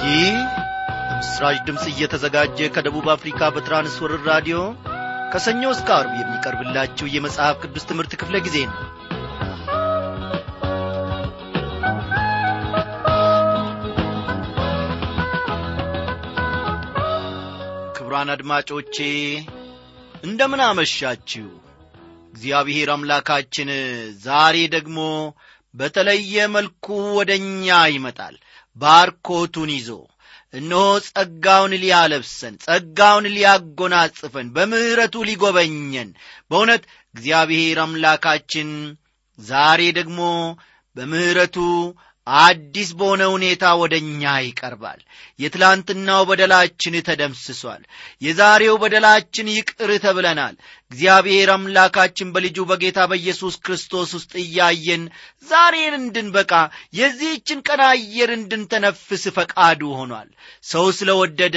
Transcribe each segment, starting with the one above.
ይህ በምስራች ድምጽ እየተዘጋጀ ከደቡብ አፍሪካ በትራንስወርልድ ራዲዮ ከሰኞ እስከ ዓርብ የሚቀርብላችሁ የመጽሐፍ ቅዱስ ትምህርት ክፍለ ጊዜ ነው። ክቡራን አድማጮቼ እንደምን አመሻችሁ። እግዚአብሔር አምላካችን ዛሬ ደግሞ በተለየ መልኩ ወደኛ ይመጣል። ባርኮቱን ይዞ እነሆ ጸጋውን ሊያለብሰን፣ ጸጋውን ሊያጎናጽፈን፣ በምህረቱ ሊጎበኘን በእውነት እግዚአብሔር አምላካችን ዛሬ ደግሞ በምህረቱ አዲስ በሆነ ሁኔታ ወደኛ ይቀርባል። የትላንትናው በደላችን ተደምስሷል። የዛሬው በደላችን ይቅር ተብለናል። እግዚአብሔር አምላካችን በልጁ በጌታ በኢየሱስ ክርስቶስ ውስጥ እያየን ዛሬን እንድንበቃ የዚህችን ቀን አየር እንድንተነፍስ ፈቃዱ ሆኗል። ሰው ስለወደደ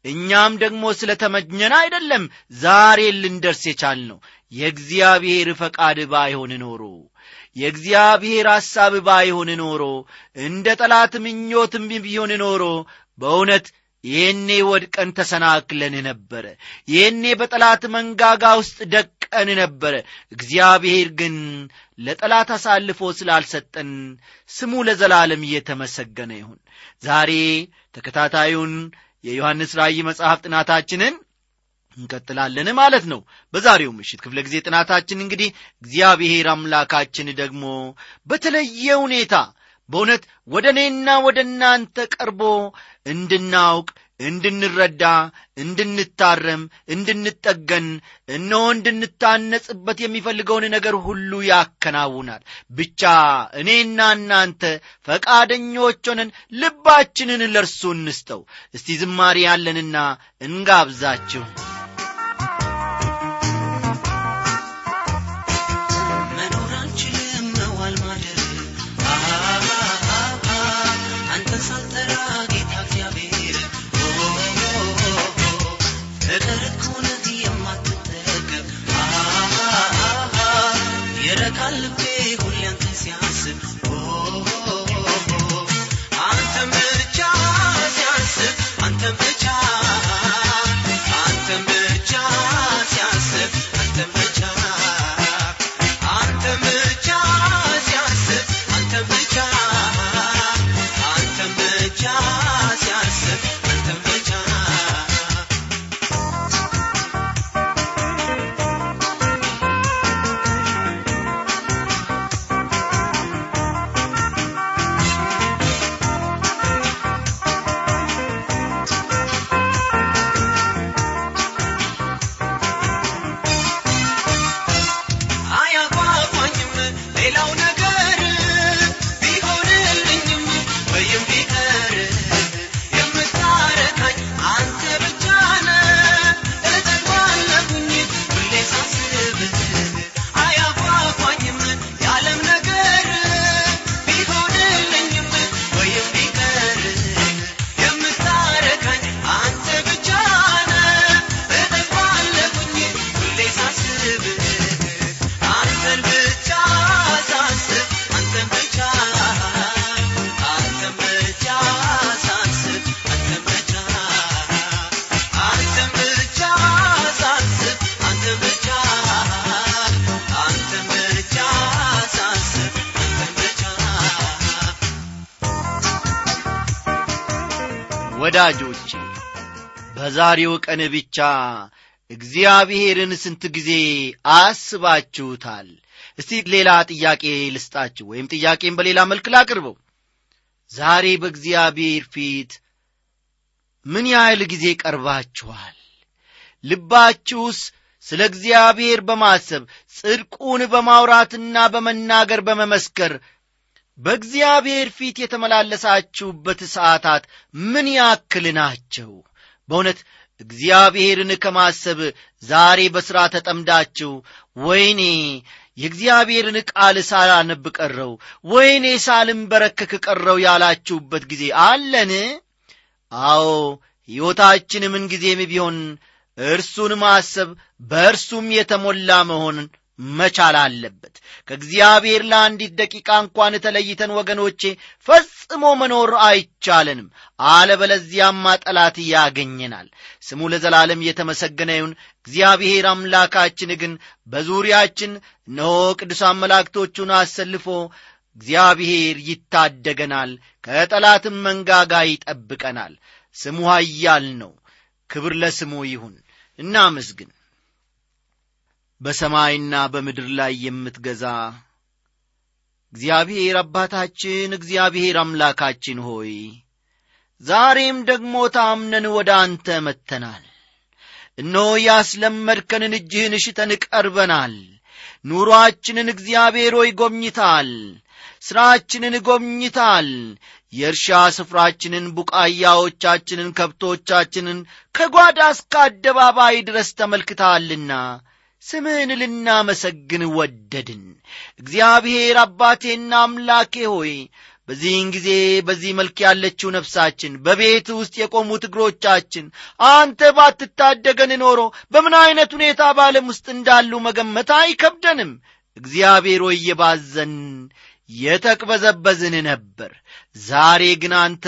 እኛም ደግሞ ስለተመኘን አይደለም ዛሬ ልንደርስ የቻልነው። የእግዚአብሔር ፈቃድ ባይሆን ኖሮ፣ የእግዚአብሔር ሐሳብ ባይሆን ኖሮ፣ እንደ ጠላት ምኞትም ቢሆን ኖሮ በእውነት ይህኔ ወድቀን ተሰናክለን ነበረ። ይህኔ በጠላት መንጋጋ ውስጥ ደቀን ነበረ። እግዚአብሔር ግን ለጠላት አሳልፎ ስላልሰጠን ስሙ ለዘላለም እየተመሰገነ ይሁን። ዛሬ ተከታታዩን የዮሐንስ ራእይ መጽሐፍ ጥናታችንን እንቀጥላለን ማለት ነው። በዛሬው ምሽት ክፍለ ጊዜ ጥናታችን እንግዲህ እግዚአብሔር አምላካችን ደግሞ በተለየ ሁኔታ በእውነት ወደ እኔና ወደ እናንተ ቀርቦ እንድናውቅ፣ እንድንረዳ፣ እንድንታረም፣ እንድንጠገን፣ እነሆ እንድንታነጽበት የሚፈልገውን ነገር ሁሉ ያከናውናል። ብቻ እኔና እናንተ ፈቃደኞች ሆነን ልባችንን ለርሱ እንስጠው። እስቲ ዝማሬ ያለንና እንጋብዛችሁ። ወዳጆቼ በዛሬው ቀን ብቻ እግዚአብሔርን ስንት ጊዜ አስባችሁታል? እስቲ ሌላ ጥያቄ ልስጣችሁ፣ ወይም ጥያቄን በሌላ መልክ ላቅርበው። ዛሬ በእግዚአብሔር ፊት ምን ያህል ጊዜ ቀርባችኋል? ልባችሁስ ስለ እግዚአብሔር በማሰብ ጽድቁን በማውራትና በመናገር በመመስከር በእግዚአብሔር ፊት የተመላለሳችሁበት ሰዓታት ምን ያክል ናቸው? በእውነት እግዚአብሔርን ከማሰብ ዛሬ በሥራ ተጠምዳችሁ ወይኔ የእግዚአብሔርን ቃል ሳላነብ ቀረው፣ ወይኔ ሳልንበረከክ ቀረው ያላችሁበት ጊዜ አለን? አዎ፣ ሕይወታችን ምን ጊዜም ቢሆን እርሱን ማሰብ በእርሱም የተሞላ መሆን መቻል አለበት። ከእግዚአብሔር ለአንዲት ደቂቃ እንኳን ተለይተን ወገኖቼ ፈጽሞ መኖር አይቻለንም። አለበለዚያማ ጠላት ያገኘናል። ስሙ ለዘላለም የተመሰገነ ይሁን። እግዚአብሔር አምላካችን ግን በዙሪያችን እነሆ ቅዱሳን መላእክቶቹን አሰልፎ እግዚአብሔር ይታደገናል፣ ከጠላትም መንጋጋ ይጠብቀናል። ስሙ ኃያል ነው። ክብር ለስሙ ይሁን። እናመስግን። በሰማይና በምድር ላይ የምትገዛ እግዚአብሔር አባታችን፣ እግዚአብሔር አምላካችን ሆይ ዛሬም ደግሞ ታምነን ወደ አንተ መጥተናል። እነሆ ያስለመድከንን እጅህን ሽተን ቀርበናል። ኑሮአችንን እግዚአብሔር ሆይ ጎብኝታል። ሥራችንን ጎብኝታል። የእርሻ ስፍራችንን፣ ቡቃያዎቻችንን፣ ከብቶቻችንን ከጓዳ እስከ አደባባይ ድረስ ተመልክተሃልና ስምህን ልናመሰግን ወደድን። እግዚአብሔር አባቴና አምላኬ ሆይ በዚህን ጊዜ በዚህ መልክ ያለችው ነፍሳችን፣ በቤት ውስጥ የቆሙት እግሮቻችን አንተ ባትታደገን ኖሮ በምን አይነት ሁኔታ በዓለም ውስጥ እንዳሉ መገመት አይከብደንም። እግዚአብሔር ሆይ የባዘን የተቅበዘበዝን ነበር። ዛሬ ግን አንተ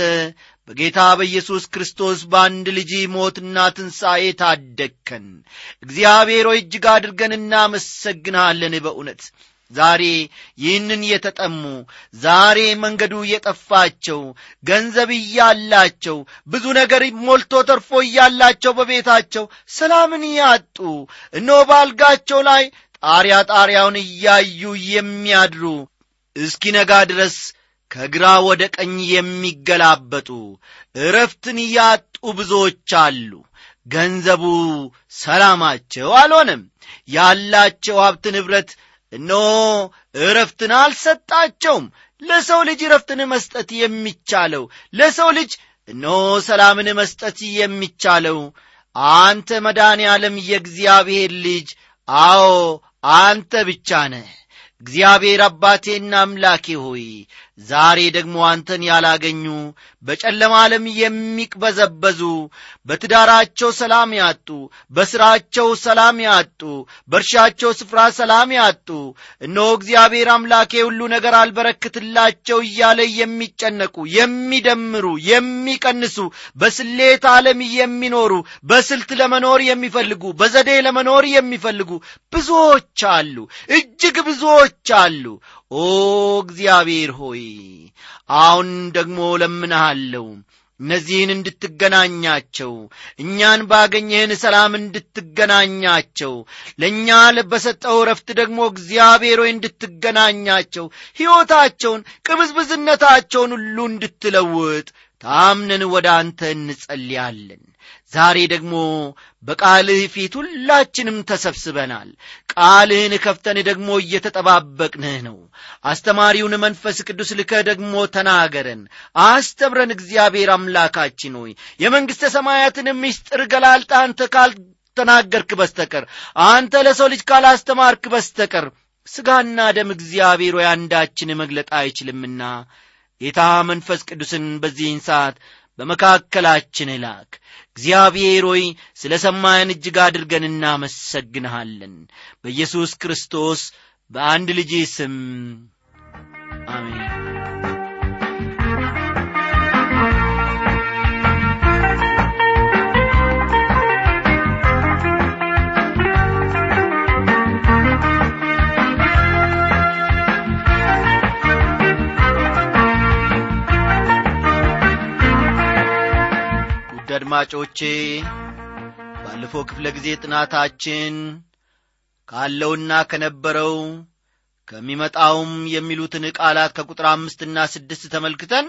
በጌታ በኢየሱስ ክርስቶስ በአንድ ልጅ ሞትና ትንሣኤ ታደግከን። እግዚአብሔር ሆይ እጅግ አድርገን እናመሰግንሃለን። በእውነት ዛሬ ይህንን የተጠሙ፣ ዛሬ መንገዱ የጠፋቸው፣ ገንዘብ እያላቸው፣ ብዙ ነገር ሞልቶ ተርፎ እያላቸው በቤታቸው ሰላምን ያጡ፣ እነሆ ባልጋቸው ላይ ጣሪያውን እያዩ የሚያድሩ፣ እስኪነጋ ድረስ ከግራ ወደ ቀኝ የሚገላበጡ፣ ዕረፍትን ያጡ ብዙዎች አሉ። ገንዘቡ ሰላማቸው አልሆነም። ያላቸው ሀብት ንብረት እነሆ ዕረፍትን አልሰጣቸውም። ለሰው ልጅ ዕረፍትን መስጠት የሚቻለው፣ ለሰው ልጅ እነሆ ሰላምን መስጠት የሚቻለው አንተ መድኃኔዓለም የእግዚአብሔር ልጅ፣ አዎ አንተ ብቻ ነህ። እግዚአብሔር አባቴና አምላኬ ሆይ ዛሬ ደግሞ አንተን ያላገኙ፣ በጨለማ ዓለም የሚቅበዘበዙ፣ በትዳራቸው ሰላም ያጡ፣ በሥራቸው ሰላም ያጡ፣ በእርሻቸው ስፍራ ሰላም ያጡ፣ እነሆ እግዚአብሔር አምላኬ ሁሉ ነገር አልበረክትላቸው እያለ የሚጨነቁ፣ የሚደምሩ፣ የሚቀንሱ፣ በስሌት ዓለም የሚኖሩ፣ በስልት ለመኖር የሚፈልጉ፣ በዘዴ ለመኖር የሚፈልጉ ብዙዎች አሉ፣ እጅግ ብዙዎች አሉ። ኦ እግዚአብሔር ሆይ አሁን ደግሞ ለምንሃለሁ እነዚህን እንድትገናኛቸው፣ እኛን ባገኘህን ሰላም እንድትገናኛቸው፣ ለእኛ በሰጠው ረፍት ደግሞ እግዚአብሔር ሆይ እንድትገናኛቸው፣ ሕይወታቸውን፣ ቅብዝብዝነታቸውን ሁሉ እንድትለውጥ ታምነን ወደ አንተ እንጸልያለን። ዛሬ ደግሞ በቃልህ ፊት ሁላችንም ተሰብስበናል። ቃልህን ከፍተን ደግሞ እየተጠባበቅንህ ነው። አስተማሪውን መንፈስ ቅዱስ ልከህ ደግሞ ተናገረን፣ አስተምረን። እግዚአብሔር አምላካችን ሆይ የመንግሥተ ሰማያትን ምስጢር ገላልጠህ አንተ ካልተናገርክ በስተቀር፣ አንተ ለሰው ልጅ ካላስተማርክ በስተቀር ሥጋና ደም እግዚአብሔር ሆይ አንዳችን መግለጥ አይችልምና ጌታ መንፈስ ቅዱስን በዚህን ሰዓት በመካከላችን ላክ። እግዚአብሔር ሆይ ስለ ሰማን እጅግ አድርገን እናመሰግንሃለን። በኢየሱስ ክርስቶስ በአንድ ልጅ ስም አሜን። አድማጮቼ ባለፈው ክፍለ ጊዜ ጥናታችን ካለውና ከነበረው ከሚመጣውም የሚሉትን ቃላት ከቁጥር 5 እና 6 ተመልክተን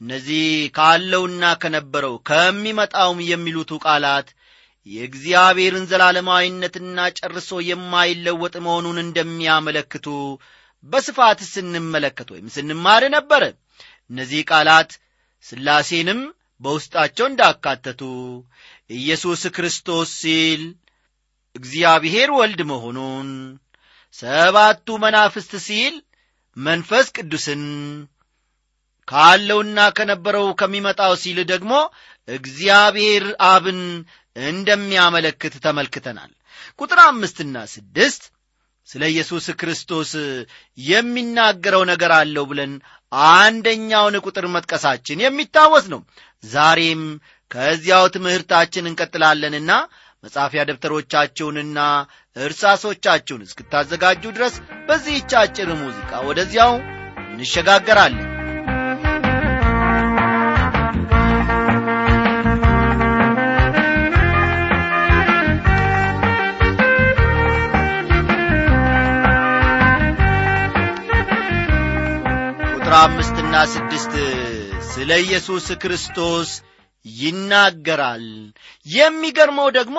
እነዚህ ካለውና ከነበረው ከሚመጣውም የሚሉት ቃላት የእግዚአብሔርን ዘላለማዊነትና ጨርሶ የማይለወጥ መሆኑን እንደሚያመለክቱ በስፋት ስንመለከት ወይም ስንማር ነበር። እነዚህ ቃላት ሥላሴንም በውስጣቸው እንዳካተቱ፣ ኢየሱስ ክርስቶስ ሲል እግዚአብሔር ወልድ መሆኑን፣ ሰባቱ መናፍስት ሲል መንፈስ ቅዱስን፣ ካለውና ከነበረው ከሚመጣው ሲል ደግሞ እግዚአብሔር አብን እንደሚያመለክት ተመልክተናል። ቁጥር 5 እና 6 ስለ ኢየሱስ ክርስቶስ የሚናገረው ነገር አለው ብለን አንደኛውን ቁጥር መጥቀሳችን የሚታወስ ነው። ዛሬም ከዚያው ትምህርታችን እንቀጥላለንና መጻፊያ ደብተሮቻችሁንና እርሳሶቻችሁን እስክታዘጋጁ ድረስ በዚህች አጭር ሙዚቃ ወደዚያው እንሸጋገራለን። ቁጥር 5 እና 6 ስለ ኢየሱስ ክርስቶስ ይናገራል። የሚገርመው ደግሞ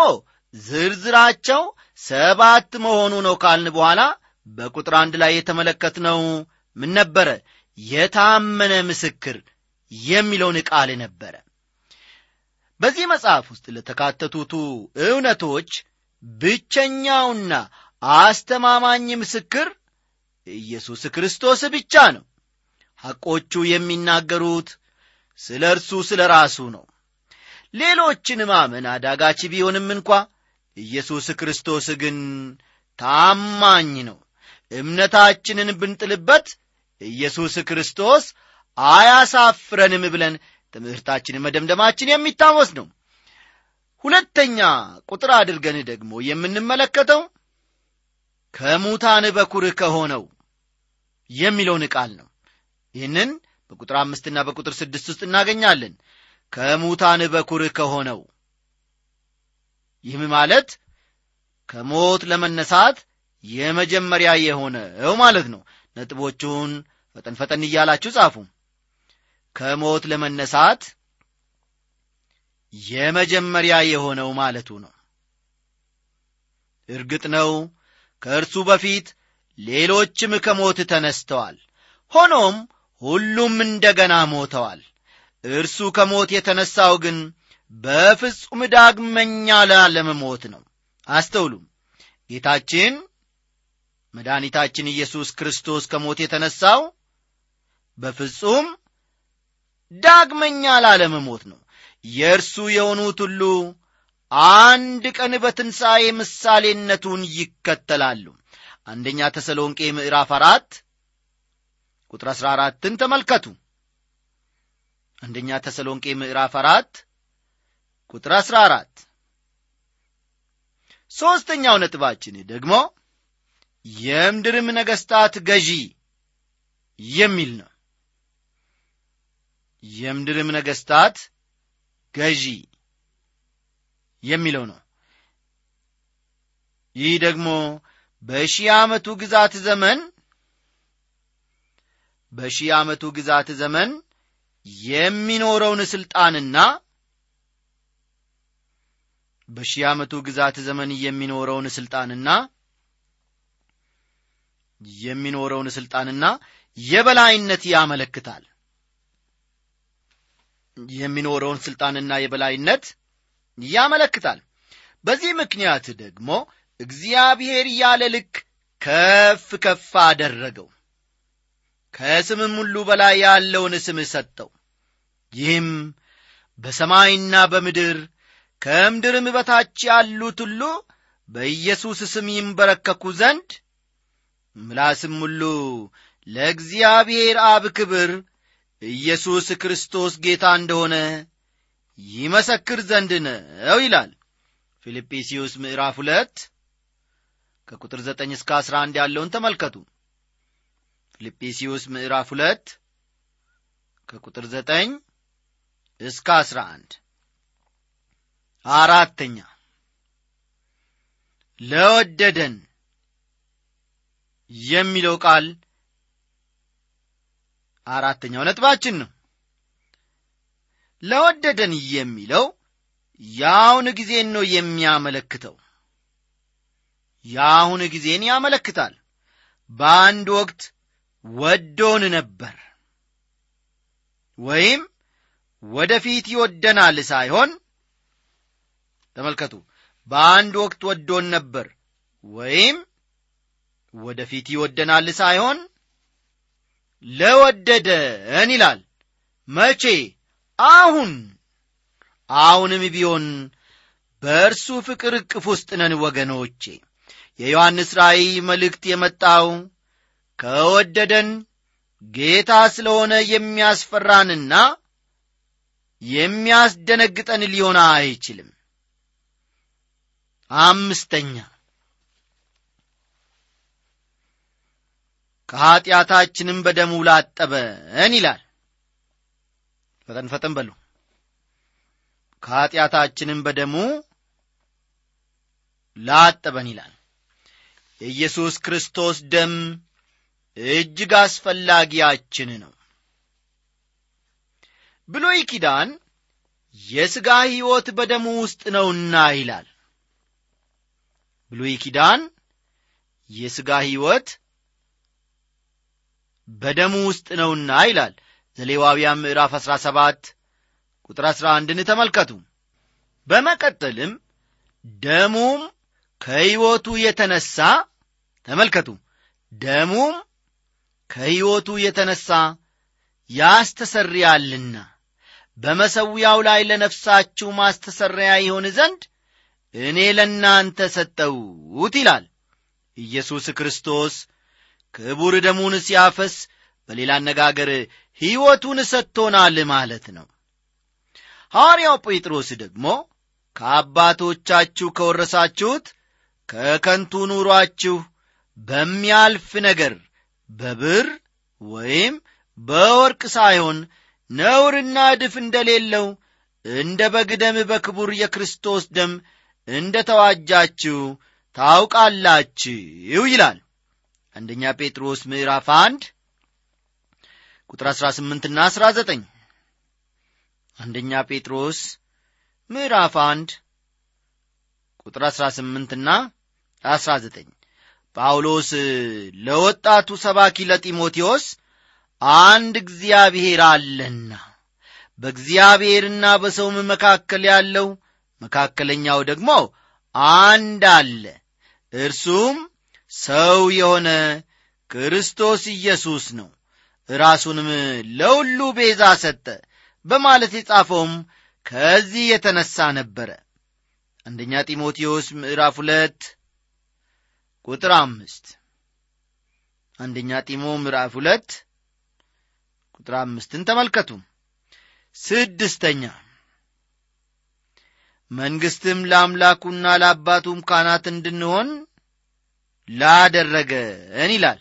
ዝርዝራቸው 7 መሆኑ ነው ካልን በኋላ በቁጥር 1 ላይ የተመለከትነው ምን ነበረ? የታመነ ምስክር የሚለውን ቃል ነበረ። በዚህ መጽሐፍ ውስጥ ለተካተቱት እውነቶች ብቸኛውና አስተማማኝ ምስክር ኢየሱስ ክርስቶስ ብቻ ነው። ሐቆቹ የሚናገሩት ስለ እርሱ ስለ ራሱ ነው። ሌሎችን ማመን አዳጋች ቢሆንም እንኳ ኢየሱስ ክርስቶስ ግን ታማኝ ነው። እምነታችንን ብንጥልበት ኢየሱስ ክርስቶስ አያሳፍረንም ብለን ትምህርታችንን መደምደማችን የሚታወስ ነው። ሁለተኛ ቁጥር አድርገን ደግሞ የምንመለከተው ከሙታን በኩር ከሆነው የሚለውን ቃል ነው። ይህንን በቁጥር 5 እና በቁጥር 6 ውስጥ እናገኛለን። ከሙታን በኩር ከሆነው፣ ይህም ማለት ከሞት ለመነሳት የመጀመሪያ የሆነው ማለት ነው። ነጥቦቹን ፈጠን ፈጠን እያላችሁ ጻፉ። ከሞት ለመነሳት የመጀመሪያ የሆነው ማለቱ ነው። እርግጥ ነው ከእርሱ በፊት ሌሎችም ከሞት ተነስተዋል። ሆኖም ሁሉም እንደገና ሞተዋል። እርሱ ከሞት የተነሳው ግን በፍጹም ዳግመኛ ላለመሞት ነው። አስተውሉ። ጌታችን መድኃኒታችን ኢየሱስ ክርስቶስ ከሞት የተነሳው በፍጹም ዳግመኛ ላለመሞት ነው። የእርሱ የሆኑት ሁሉ አንድ ቀን በትንሣኤ ምሳሌነቱን ይከተላሉ። አንደኛ ተሰሎንቄ ምዕራፍ 4 ቁጥር 14ን ተመልከቱ። አንደኛ ተሰሎንቄ ምዕራፍ 4 ቁጥር 14። ሶስተኛው ነጥባችን ደግሞ የምድርም ነገሥታት ገዢ የሚል ነው። የምድርም ነገሥታት ገዢ የሚለው ነው። ይህ ደግሞ በሺህ ዓመቱ ግዛት ዘመን የሚኖረውን ስልጣንና የበላይነት ያመለክታል። የሚኖረውን ስልጣንና የበላይነት ያመለክታል። በዚህ ምክንያት ደግሞ እግዚአብሔር ያለ ልክ ከፍ ከፍ አደረገው፣ ከስምም ሁሉ በላይ ያለውን ስም ሰጠው። ይህም በሰማይና በምድር ከምድርም በታች ያሉት ሁሉ በኢየሱስ ስም ይንበረከኩ ዘንድ ምላስም ሁሉ ለእግዚአብሔር አብ ክብር ኢየሱስ ክርስቶስ ጌታ እንደሆነ ይመሰክር ዘንድ ነው ይላል። ፊልጵስዩስ ምዕራፍ 2 ከቁጥር 9 እስከ 11 ያለውን ተመልከቱ። ፊልጵስዩስ ምዕራፍ 2 ከቁጥር 9 እስከ 11። አራተኛ ለወደደን የሚለው ቃል አራተኛው ነጥባችን ነው። ለወደደን የሚለው ያውን ጊዜን ነው የሚያመለክተው። ያውን ጊዜን ያመለክታል። በአንድ ወቅት ወዶን ነበር ወይም ወደፊት ይወደናል ሳይሆን፣ ተመልከቱ፣ በአንድ ወቅት ወዶን ነበር ወይም ወደፊት ይወደናል ሳይሆን ለወደደን ይላል። መቼ? አሁንም ቢሆን በእርሱ ፍቅር እቅፍ ውስጥ ነን ወገኖቼ። የዮሐንስ ራእይ መልእክት የመጣው ከወደደን ጌታ ስለሆነ የሚያስፈራንና የሚያስደነግጠን ሊሆን አይችልም። አምስተኛ ከኃጢአታችንም በደሙ ላጠበን ይላል። ፈጠን በሉ። ከኃጢአታችንም በደሙ ላጠበን ይላል። የኢየሱስ ክርስቶስ ደም እጅግ አስፈላጊያችን ነው። ብሉይ ኪዳን የሥጋ ሕይወት በደሙ ውስጥ ነውና ይላል። ብሉይ ኪዳን የሥጋ ሕይወት በደሙ ውስጥ ነውና ይላል። ዘሌዋውያን ምዕራፍ 17 ቁጥር 11ን ተመልከቱ። በመቀጠልም ደሙም ከሕይወቱ የተነሳ ተመልከቱ፣ ደሙም ከሕይወቱ የተነሳ ያስተሰርያልና በመሠዊያው ላይ ለነፍሳችሁ ማስተሰሪያ ይሆን ዘንድ እኔ ለእናንተ ሰጠሁት ይላል። ኢየሱስ ክርስቶስ ክቡር ደሙን ሲያፈስ በሌላ አነጋገር ሕይወቱን ሰጥቶናል ማለት ነው። ሐዋርያው ጴጥሮስ ደግሞ ከአባቶቻችሁ ከወረሳችሁት ከከንቱ ኑሯችሁ በሚያልፍ ነገር በብር ወይም በወርቅ ሳይሆን ነውርና እድፍ እንደሌለው እንደ በግ ደም በክቡር የክርስቶስ ደም እንደ ተዋጃችሁ ታውቃላችሁ ይላል። አንደኛ ጴጥሮስ ምዕራፍ 1 ቁጥር 18 እና 19። አንደኛ ጴጥሮስ ምዕራፍ 1 ቁጥር 18 እና 19። ጳውሎስ ለወጣቱ ሰባኪ ለጢሞቴዎስ አንድ እግዚአብሔር አለና በእግዚአብሔርና በሰውም መካከል ያለው መካከለኛው ደግሞ አንድ አለ፣ እርሱም ሰው የሆነ ክርስቶስ ኢየሱስ ነው፣ ራሱንም ለሁሉ ቤዛ ሰጠ በማለት የጻፈውም ከዚህ የተነሳ ነበረ። አንደኛ ጢሞቴዎስ ምዕራፍ 2 ቁጥር 5። አንደኛ ጢሞ ምዕራፍ 2 ቁጥር 5ን ተመልከቱ። ስድስተኛ መንግሥትም ለአምላኩና ለአባቱም ካህናት እንድንሆን ላደረገን ይላል።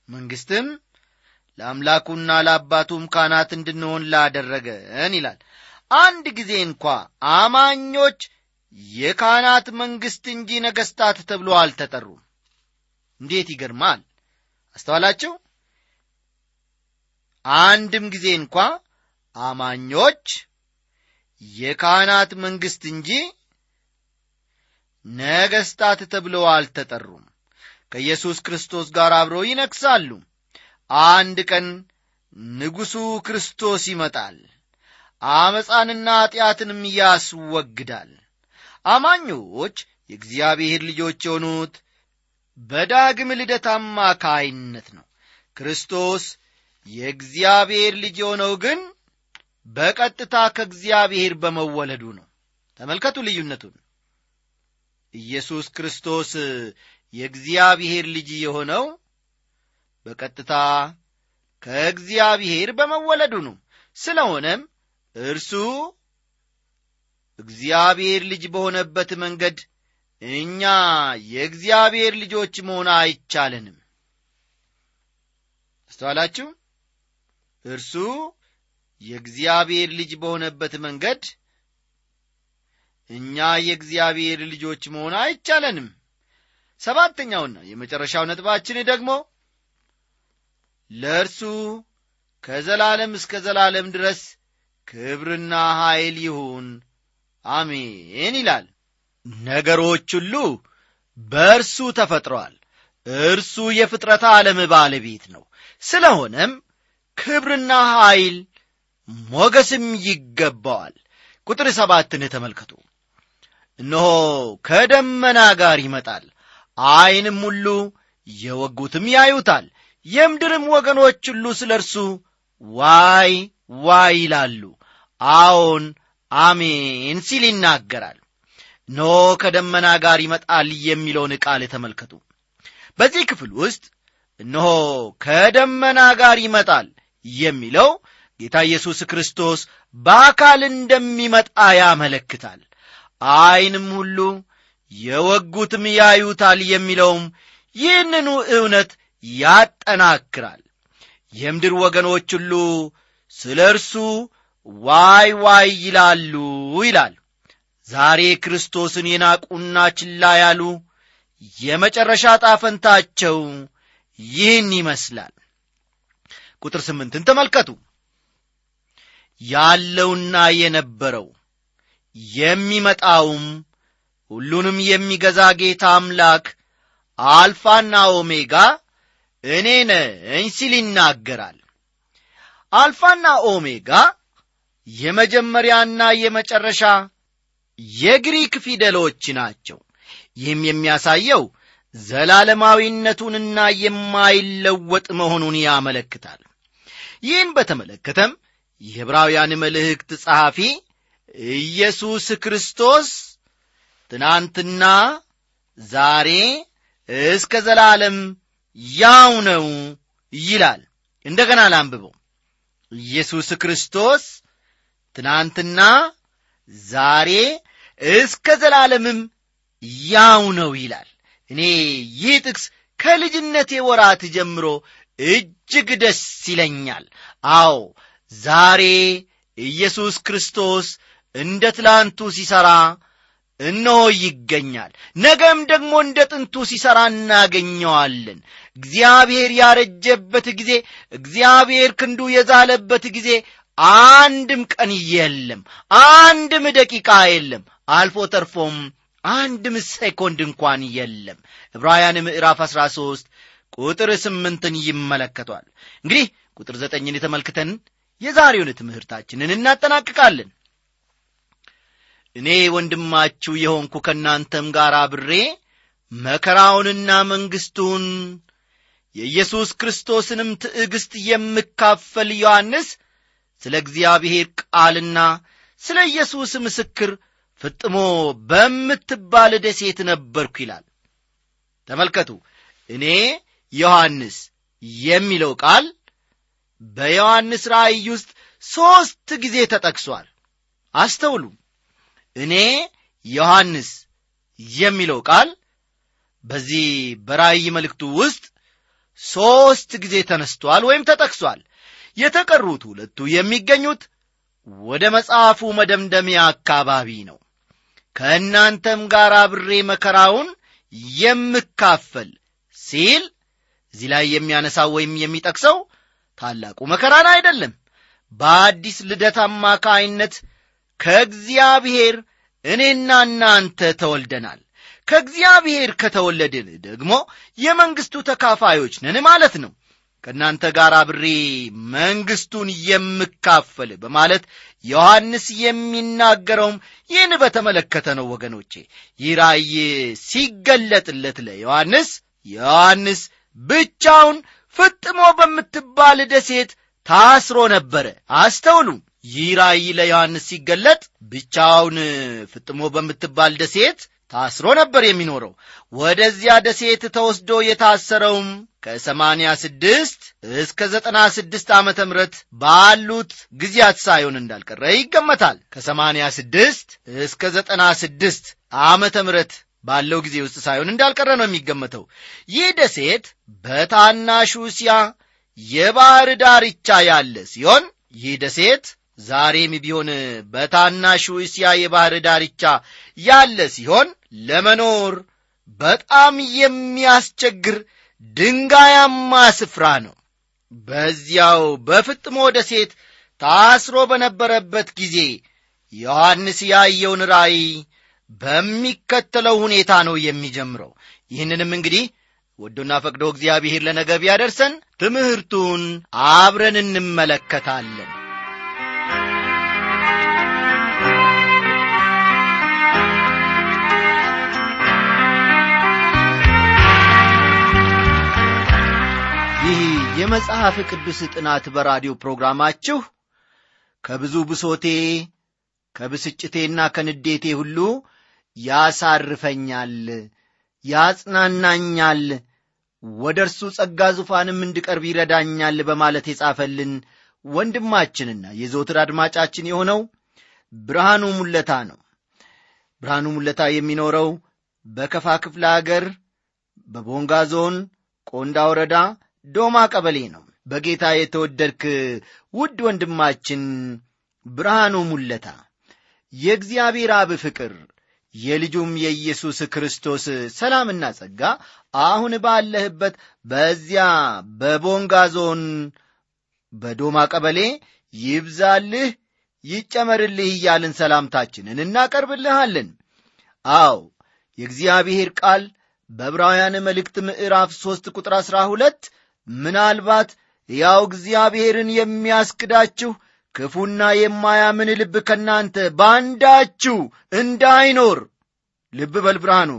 መንግሥትም ለአምላኩና ለአባቱም ካህናት እንድንሆን ላደረገን ይላል። አንድ ጊዜ እንኳ አማኞች የካህናት መንግሥት እንጂ ነገሥታት ተብሎ አልተጠሩም። እንዴት ይገርማል! አስተዋላችሁ? አንድም ጊዜ እንኳ አማኞች የካህናት መንግሥት እንጂ ነገሥታት ተብለው አልተጠሩም። ከኢየሱስ ክርስቶስ ጋር አብረው ይነግሣሉ። አንድ ቀን ንጉሡ ክርስቶስ ይመጣል፣ አመፃንና ኃጢአትንም ያስወግዳል። አማኞች የእግዚአብሔር ልጆች የሆኑት በዳግም ልደት አማካይነት ነው። ክርስቶስ የእግዚአብሔር ልጅ የሆነው ግን በቀጥታ ከእግዚአብሔር በመወለዱ ነው። ተመልከቱ ልዩነቱን። ኢየሱስ ክርስቶስ የእግዚአብሔር ልጅ የሆነው በቀጥታ ከእግዚአብሔር በመወለዱ ነው። ስለሆነም እርሱ እግዚአብሔር ልጅ በሆነበት መንገድ እኛ የእግዚአብሔር ልጆች መሆን አይቻለንም። አስተዋላችሁ? እርሱ የእግዚአብሔር ልጅ በሆነበት መንገድ እኛ የእግዚአብሔር ልጆች መሆን አይቻለንም። ሰባተኛውና የመጨረሻው ነጥባችን ደግሞ ለእርሱ ከዘላለም እስከ ዘላለም ድረስ ክብርና ኃይል ይሁን አሜን ይላል። ነገሮች ሁሉ በእርሱ ተፈጥረዋል። እርሱ የፍጥረት ዓለም ባለቤት ነው። ስለሆነም ክብርና ኃይል ሞገስም ይገባዋል። ቁጥር 7ን ተመልከቱ። እነሆ ከደመና ጋር ይመጣል፣ ዓይንም ሁሉ የወጉትም ያዩታል፣ የምድርም ወገኖች ሁሉ ስለ እርሱ ዋይ ዋይ ይላሉ። አዎን አሜን ሲል ይናገራል። ኖ ከደመና ጋር ይመጣል የሚለውን ቃል ተመልከቱ። በዚህ ክፍል ውስጥ እነሆ ከደመና ጋር ይመጣል የሚለው ጌታ ኢየሱስ ክርስቶስ በአካል እንደሚመጣ ያመለክታል። ዓይንም ሁሉ የወጉትም ያዩታል የሚለውም ይህንኑ እውነት ያጠናክራል። የምድር ወገኖች ሁሉ ስለ እርሱ ዋይ ዋይ ይላሉ ይላል። ዛሬ ክርስቶስን የናቁና ችላ ያሉ የመጨረሻ ጣፈንታቸው ይህን ይመስላል። ቁጥር 8 ተመልከቱ። ያለውና የነበረው የሚመጣውም ሁሉንም የሚገዛ ጌታ አምላክ አልፋና ኦሜጋ እኔ ነኝ ሲል ይናገራል። አልፋና ኦሜጋ የመጀመሪያና የመጨረሻ የግሪክ ፊደሎች ናቸው። ይህም የሚያሳየው ዘላለማዊነቱንና የማይለወጥ መሆኑን ያመለክታል። ይህን በተመለከተም የዕብራውያን መልእክት ጸሐፊ ኢየሱስ ክርስቶስ ትናንትና ዛሬ እስከ ዘላለም ያው ነው ይላል። እንደገና ላንብበው። ኢየሱስ ክርስቶስ ትናንትና ዛሬ እስከ ዘላለምም ያው ነው ይላል። እኔ ይህ ጥቅስ ከልጅነቴ ወራት ጀምሮ እጅግ ደስ ይለኛል። አዎ ዛሬ ኢየሱስ ክርስቶስ እንደ ትላንቱ ሲሰራ እነሆ ይገኛል። ነገም ደግሞ እንደ ጥንቱ ሲሰራ እናገኘዋለን። እግዚአብሔር ያረጀበት ጊዜ፣ እግዚአብሔር ክንዱ የዛለበት ጊዜ አንድም ቀን የለም፣ አንድም ደቂቃ የለም፣ አልፎ ተርፎም አንድም ሴኮንድ እንኳን የለም። ዕብራውያን ምዕራፍ 13 ቁጥር 8 ይመለከቷል። እንግዲህ ቁጥር 9ን ተመልክተን የዛሬውን ትምህርታችንን እናጠናቅቃለን። እኔ ወንድማችሁ የሆንኩ ከናንተም ጋር አብሬ መከራውንና መንግስቱን የኢየሱስ ክርስቶስንም ትዕግስት የምካፈል ዮሐንስ ስለ እግዚአብሔር ቃልና ስለ ኢየሱስ ምስክር ፍጥሞ በምትባል ደሴት ነበርኩ ይላል። ተመልከቱ፣ እኔ ዮሐንስ የሚለው ቃል በዮሐንስ ራእይ ውስጥ 3 ጊዜ ተጠቅሷል። አስተውሉ። እኔ ዮሐንስ የሚለው ቃል በዚህ በራእይ መልእክቱ ውስጥ 3 ጊዜ ተነስቷል ወይም ተጠቅሷል። የተቀሩት 2 የሚገኙት ወደ መጽሐፉ መደምደሚያ አካባቢ ነው። ከእናንተም ጋር አብሬ መከራውን የምካፈል ሲል እዚህ ላይ የሚያነሳው ወይም የሚጠቅሰው ታላቁ መከራን አይደለም። በአዲስ ልደት አማካይነት ከእግዚአብሔር እኔና እናንተ ተወልደናል። ከእግዚአብሔር ከተወለድን ደግሞ የመንግስቱ ተካፋዮች ነን ማለት ነው። ከእናንተ ጋር አብሬ መንግስቱን የምካፈል በማለት ዮሐንስ የሚናገረውም ይህን በተመለከተ ነው። ወገኖቼ ይህ ራእይ ሲገለጥለት ለዮሐንስ ብቻውን ፍጥሞ በምትባል ደሴት ታስሮ ነበረ። አስተውሉ። ይህ ራእይ ለዮሐንስ ሲገለጥ ብቻውን ፍጥሞ በምትባል ደሴት ታስሮ ነበር የሚኖረው። ወደዚያ ደሴት ተወስዶ የታሰረውም ከ86 እስከ 96 ዓመተ ምህረት ባሉት ጊዜያት ሳይሆን እንዳልቀረ ይገመታል። ከ86 እስከ 96 ዓመተ ምህረት ባለው ጊዜ ውስጥ ሳይሆን እንዳልቀረ ነው የሚገመተው። ይህ ደሴት በታናሹ እስያ የባህር ዳርቻ ያለ ሲሆን ይህ ደሴት ዛሬም ቢሆን በታናሹ እስያ የባህር ዳርቻ ያለ ሲሆን ለመኖር በጣም የሚያስቸግር ድንጋያማ ስፍራ ነው። በዚያው በፍጥሞ ደሴት ታስሮ በነበረበት ጊዜ ዮሐንስ ያየውን ራእይ በሚከተለው ሁኔታ ነው የሚጀምረው። ይህንንም እንግዲህ ወዶና ፈቅዶ እግዚአብሔር ለነገ ቢያደርሰን ትምህርቱን አብረን እንመለከታለን። ይህ የመጽሐፍ ቅዱስ ጥናት በራዲዮ ፕሮግራማችሁ ከብዙ ብሶቴ ከብስጭቴና ከንዴቴ ሁሉ ያሳርፈኛል፣ ያጽናናኛል፣ ወደርሱ ጸጋ ዙፋንም እንድቀርብ ይረዳኛል በማለት የጻፈልን ወንድማችንና የዘወትር አድማጫችን የሆነው ብርሃኑ ሙለታ ነው። ብርሃኑ ሙለታ የሚኖረው በከፋ ክፍለ ሀገር በቦንጋ ዞን ቆንዳ ወረዳ ዶማ ቀበሌ ነው። በጌታ የተወደድክ ውድ ወንድማችን ብርሃኑ ሙለታ የእግዚአብሔር አብ ፍቅር የልጁም የኢየሱስ ክርስቶስ ሰላምና ጸጋ አሁን ባለህበት በዚያ በቦንጋ ዞን በዶማ ቀበሌ ይብዛልህ ይጨመርልህ እያልን ሰላምታችንን እናቀርብልሃለን። አዎ የእግዚአብሔር ቃል በዕብራውያን መልእክት ምዕራፍ 3 ቁጥር 12 ምናልባት ያው እግዚአብሔርን የሚያስክዳችሁ ክፉና የማያምን ልብ ከናንተ ባንዳችሁ እንዳይኖር፣ ልብ በል ብርሃኑ፣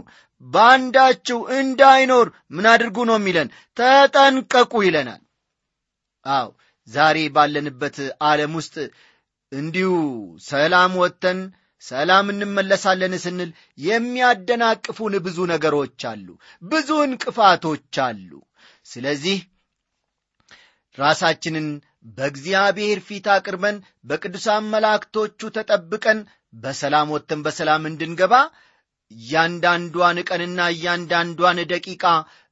ባንዳችሁ እንዳይኖር ምን አድርጉ ነው የሚለን? ተጠንቀቁ ይለናል። አዎ ዛሬ ባለንበት ዓለም ውስጥ እንዲሁ ሰላም ወጥተን ሰላም እንመለሳለን ስንል የሚያደናቅፉን ብዙ ነገሮች አሉ፣ ብዙ እንቅፋቶች አሉ። ስለዚህ ራሳችንን በእግዚአብሔር ፊት አቅርበን በቅዱሳን መላእክቶቹ ተጠብቀን በሰላም ወጥተን በሰላም እንድንገባ እያንዳንዷን ቀንና እያንዳንዷን ደቂቃ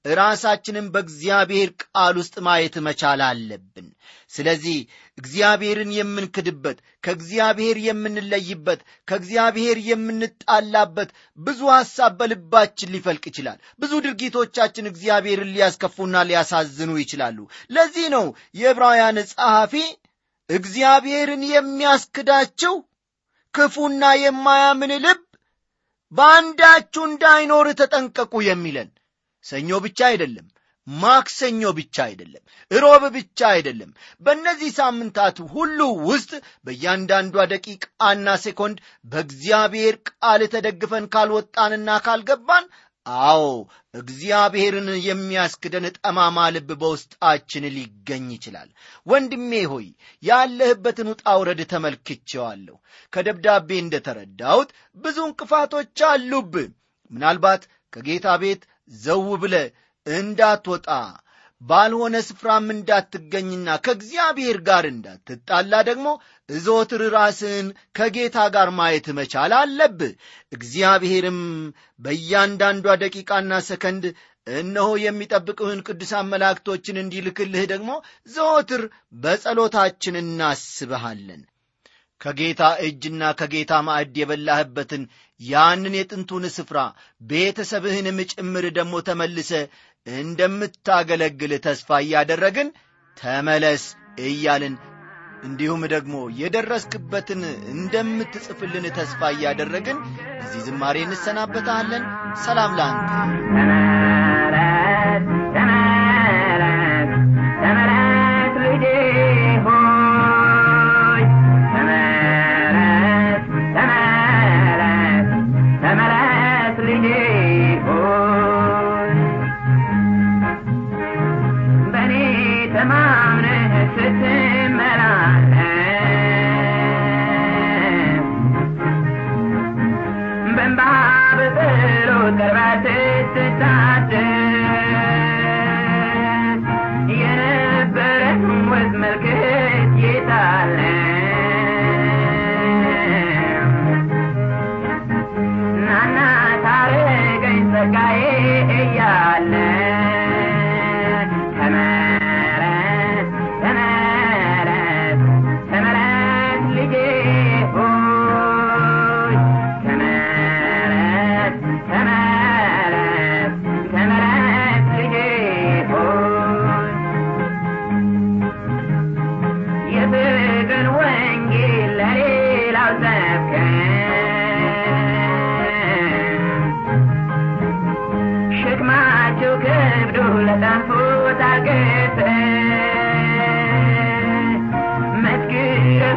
ራሳችንን በእግዚአብሔር ቃል ውስጥ ማየት መቻል አለብን። ስለዚህ እግዚአብሔርን የምንክድበት፣ ከእግዚአብሔር የምንለይበት፣ ከእግዚአብሔር የምንጣላበት ብዙ ሐሳብ በልባችን ሊፈልቅ ይችላል። ብዙ ድርጊቶቻችን እግዚአብሔርን ሊያስከፉና ሊያሳዝኑ ይችላሉ። ለዚህ ነው የዕብራውያን ጸሐፊ እግዚአብሔርን የሚያስክዳቸው ክፉና የማያምን ልብ ባንዳችሁ እንዳይኖር ተጠንቀቁ የሚለን። ሰኞ ብቻ አይደለም፣ ማክሰኞ ብቻ አይደለም፣ ሮብ ብቻ አይደለም። በእነዚህ ሳምንታት ሁሉ ውስጥ በእያንዳንዷ ደቂቃና ሴኮንድ በእግዚአብሔር ቃል ተደግፈን ካልወጣንና ካልገባን፣ አዎ እግዚአብሔርን የሚያስክደን ጠማማ ልብ በውስጣችን ሊገኝ ይችላል። ወንድሜ ሆይ ያለህበትን ውጣ ውረድ ተመልክቼዋለሁ። ከደብዳቤ እንደተረዳሁት ብዙ እንቅፋቶች አሉብህ። ምናልባት ከጌታ ቤት ዘው ብለህ እንዳትወጣ፣ ባልሆነ ስፍራም እንዳትገኝና ከእግዚአብሔር ጋር እንዳትጣላ ደግሞ ዘወትር ራስን ከጌታ ጋር ማየት መቻል አለብህ። እግዚአብሔርም በእያንዳንዷ ደቂቃና ሰከንድ እነሆ የሚጠብቁህን ቅዱሳን መላእክቶችን እንዲልክልህ ደግሞ ዘወትር በጸሎታችን እናስብሃለን። ከጌታ እጅና ከጌታ ማዕድ የበላህበትን ያንን የጥንቱን ስፍራ ቤተሰብህንም ጭምር ደግሞ ተመልሰ እንደምታገለግል ተስፋ እያደረግን ተመለስ እያልን እንዲሁም ደግሞ የደረስክበትን እንደምትጽፍልን ተስፋ እያደረግን እዚህ ዝማሬ እንሰናበታለን። ሰላም ላንተ።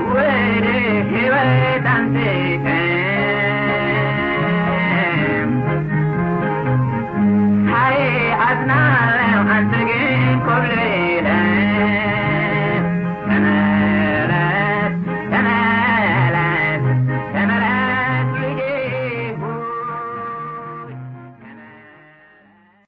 With it, he went and